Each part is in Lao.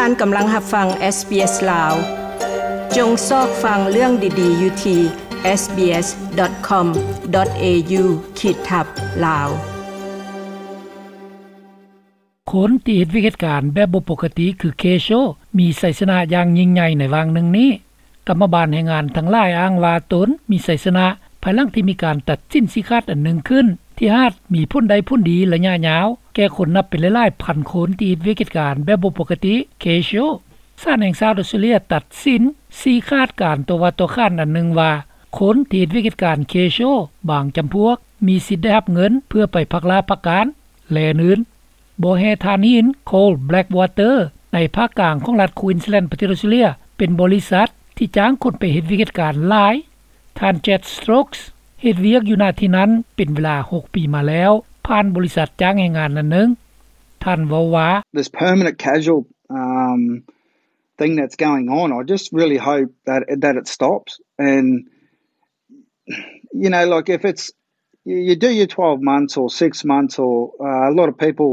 ທ່ານກຳລັງຮັບຟັງ ເອສບີເອສ ລາວ. ຈົ່ງຊອກຟັງເລື່ອງດີໆຢູ່ທີ່ ເອສບີເອສດອດຄອມດອດເອຢູ ຂີດທັບ ລາວ. ຄົນທີ່ເຮັດວຽກເຮັດການແບບບໍ່ປົກກະຕິຄືເຄໂຊ ມີໄຊຊະນະຢ່າງຍິ່ງໃຫຍ່ໃນຫວ່າງໜຶ່ງນີ້. ກຳມະບານແຮງງານທັງຫຼາຍອ້າງວ່າຕົນມີໄຊຊະນະ ພາຍຫຼັງທີ່ມີການຕັດສິນຊີ້ຂາດອັນໜຶ່ງຂຶ້ນ ທີ່ອາດມີຜົນໄດ້ຜົນດີໄລຍະຍາວ ແກ່ຄົນນັບເປັນຫຼາຍໆພັນຄົນທີ່ເຮັດວຽກເຮັດການແບບບໍ່ປົກກະຕິ ເຄໂຊ. ສານແຫ່ງຊາດອອສເຕຣເລຍຕັດສິນຊີ້ຂາດການຕໍ່ວ່າຕໍ່ຂານອັນໜຶ່ງວ່າ ຄົນທີ່ເຮັດວຽກເຮັດການເຄໂຊບາງຈຳພວກ ມີສິດໄດ້ຮັບເງິນເພື່ອໄປພັກລາພັກການ ແລະ ອື່ນໆ. ບໍ່ແຮ່ຖ່ານຫີນ Coal Blackwater ໃນພາກກາງຂອງລັດ Queensland ປະເທດອອສເຕຣເລຍ ເປັນບໍລິສັດທີ່ຈ້າງຄົນໄປເຮັດວຽກເຮັດການຫຼາຍ. ທ່ານ Chad Stokes ເຮັດວຽກຢູ່ນະທີ່ນັ້ນເປັນເວລາຫົກປີມາແລ້ວ ຜ່ານບໍລິສັດຈ້າງແຮງງານນັ້ນໜຶ່ງ. ທ່ານເວົ້າວ່າ This permanent casual, um, thing that's going on, I just really hope that, that it stops. And, you know, like, if it's, you, you do your twelve months or six months or, uh, a lot of people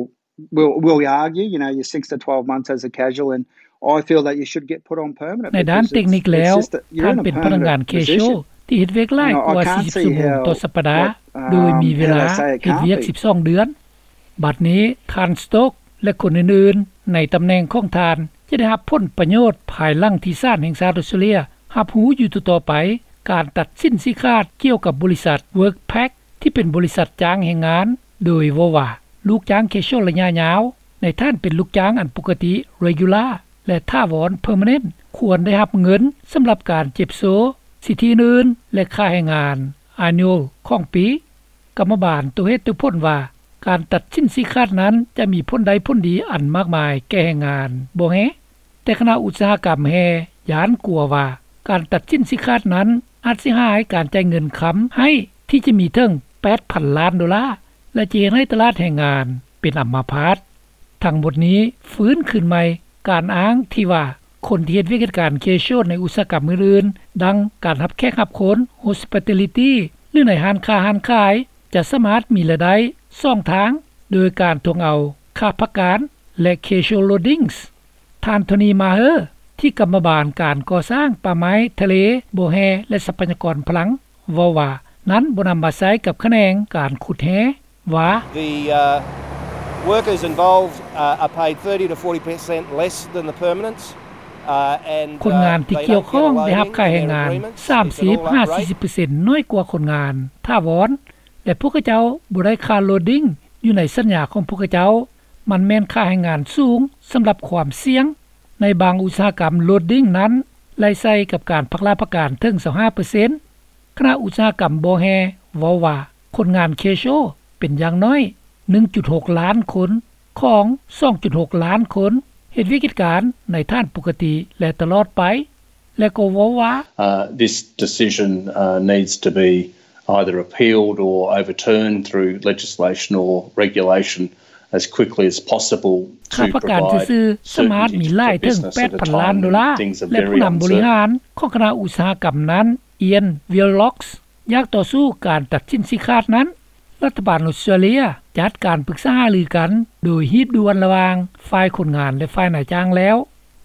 will, will argue, you know, your six to twelve months as a casual, and I feel that you should get put on permanent ໃນດ້ານເຕັກນິກແລ້ວ ທ່ານເປັນພະນັກງານເຄໂຊ ທີ່ເຮັດວຽກຫຼາຍກວ່າສີ່ສິບຊົ່ວໂມງຕໍ່ສັບປະດາ ໂດຍມີເວລາເຮັດວຽກສິບສອງເດືອນ. ບັດນີ້ ທ່ານ Stokes ແລະ ຄົນອື່ນໆໃນຕຳແໜ່ງຂອງທ່ານ ຈະໄດ້ຮັບຜົນປະໂຫຍດພາຍຫຼັງທີ່ສານແຫ່ງຊາດອອສເຕຣເລຍຮັບຮູ້ຢູ່ຕໍ່ໆໄປ ການຕັດສິນຊີ້ຂາດກ່ຽວກັບບໍລິສັດ Workpac ທີ່ເປັນບໍລິສັດຈ້າງແຮງງານ ໂດຍເວົ້າວ່າ ລູກຈ້າງເຄໂຊໄລຍະຍາວ ໃນຖານເປັນລູກຈ້າງອັນປົກກະຕິ regular ແລະ ຖາວອນ permanent ຄວນໄດ້ຮັບເງິນສຳລັບການເຈັບໂຊ ສິດທິອື່ນໆ ແລະ ຄ່າແຮງງານ annual ຂອງປີ. ກຳມະບານຕົວເຫດຕົວຜົນວ່າ ການຕັດສິນຊີ້ຂາດນັ້ນຈະມີຜົນໄດ້ຜົນດີອັນມາກມາຍແກ່ແຮງງານບໍ່ແຮ່. ແຕ່ຄະນະອຸດສາຫະກຳແຮ່ຢ້ານກົວວ່າ ການຕັດສິນຊີ້ຂາດນັ້ນອາດເສຍຫາຍການຈ່າຍເງິນຄຳໃຫ້ທີ່ຈະມີເຖິງແປດພັນລ້ານໂດລາ ແລະ ຈະເຮັດໃຫ້ຕະຫຼາດແຮງງານເປັນອຳມາພາດ. ທັງໝົດນີ້ຟື້ນຄືນໃໝ່ການອ້າງທີ່ວ່າ ຄົນທີ່ເຮັດວຽກເຮັດການເຄໂຊໃນອຸດສາຫະກຳອື່ນໆ ດັ່ງການຮັບແຂກຮັບຄົນ hospitality ຫຼື ໃນຮ້ານຄ້າຮ້ານຂາຍ ຈະສາມາດມີລາຍໄດ້ສອງທາງ ໂດຍການທວງເອົາຄ່າພັກການ ແລະ casual loadings. ທ່ານ Tony Maher ທີ່ກຳມະບານການກໍ່ສ້າງປ່າໄມ້, ທະເລ, ບໍ່ແຮ່ ແລະ ຊັບພະຍາກອນພະລັງ ເວົ້າວ່າ ນັ້ນບໍ່ນຳມາໃຊ້ກັບຂະແໜງການຂຸດແຮ່ວ່າ The, uh, workers involved, uh, are paid thirty to forty percent less than the permanents, uh, and, uh, ຄົນງານທີ່ກ່ຽວຂ້ອງໄດ້ຮັບຄ່າແຮງງານສາມສິບຫາສີ່ສິບເປີເຊັນ ນ້ອຍກວ່າຄົນງານຖາວອນ ແລະ ພວກເຂົາເຈົ້າບໍ່ໄດ້ຄ່າ loading ຢູ່ໃນສັນຍາຂອງພວກເຂົາເຈົ້າ. ມັນແມ່ນຄ່າແຮງງານສູງສຳລັບຄວາມສ່ຽງ. ໃນບາງອຸດສາຫະກຳ loading ນັ້ນໄລ່ໃສ່ກັບການພັກລາພັກການເຖິງຊາວຫ້າເປີເຊັນ. ຄະນະອຸດສາຫະກຳບໍ່ແຮ່ເວົ້າວ່າ ຄົນງານເຄໂຊເປັນຢ່າງໜ້ອຍໜຶ່ງຈຸດຫົກລ້ານຄົນ ຂອງສອງຈຸດຫົກລ້ານຄົນ ເຮັດວຽກເຮັດການໃນຖານປົກກະຕິ ແລະ ຕະຫຼອດໄປ ແລະ ກໍເວົ້າວ່າ Uh, this decision, uh, needs to be either appealed or overturned through legislation or regulation as quickly as possible to provide certainty to businesses and to businesses. ຄ່າປະກັນຊື່ໆສາມາດມີຫຼາຍເຖິງແປດພັນລ້ານໂດລາ ແລະ ຜູ້ນຳບໍລິຫານຂອງຄະນະອຸດສາຫະກຳນັ້ນ Ian Willox ຢາກຕໍ່ສູ້ການຕັດສິນຊີ້ຂາດນັ້ນ. ລັດຖະບານອອສເຕຣເລຍຈັດການປຶກສາຫາລືກັນໂດຍຮີບດ່ວນລະຫວ່າງຝ່າຍຄົນງານ ແລະ ຝ່າຍນາຍຈ້າງແລ້ວ.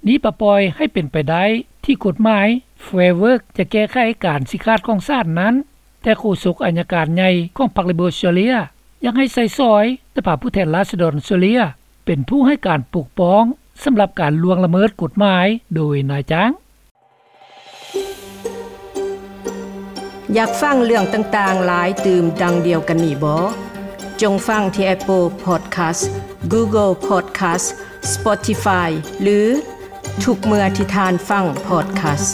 ນີ້ປະປ່ອຍໃຫ້ເປັນໄປໄດ້ທີ່ກົດໝາຍ Fair Work ຈະແກ້ໄຂການຊີ້ຂາດຂອງສານນັ້ນ, ແຕ່ໂຄສົກອັຍການໃຫຍ່ຂອງພັກ Labor ອອສເຕຣເລຍ ຢາກໃຫ້ໃຊ້ສອຍສະພາຜູ້ແທນລາຊະດອນອອສເຕຣເລຍ ເປັນຜູ້ໃຫ້ການປົກປ້ອງສຳລັບການລ່ວງລະເມີດກົດໝາຍໂດຍນາຍຈ້າງ. ຢາກຟັງເລື່ອງຕ່າງໆຫຼາຍຕື່ມດັ່ງດຽວກັນນີ້ບໍ? ຈົ່ງຟັງທີ່ Apple Podcast, Google Podcast, Spotify ຫຼື ທຸກເມື່ອທີ່ທ່ານຟັງ podcast.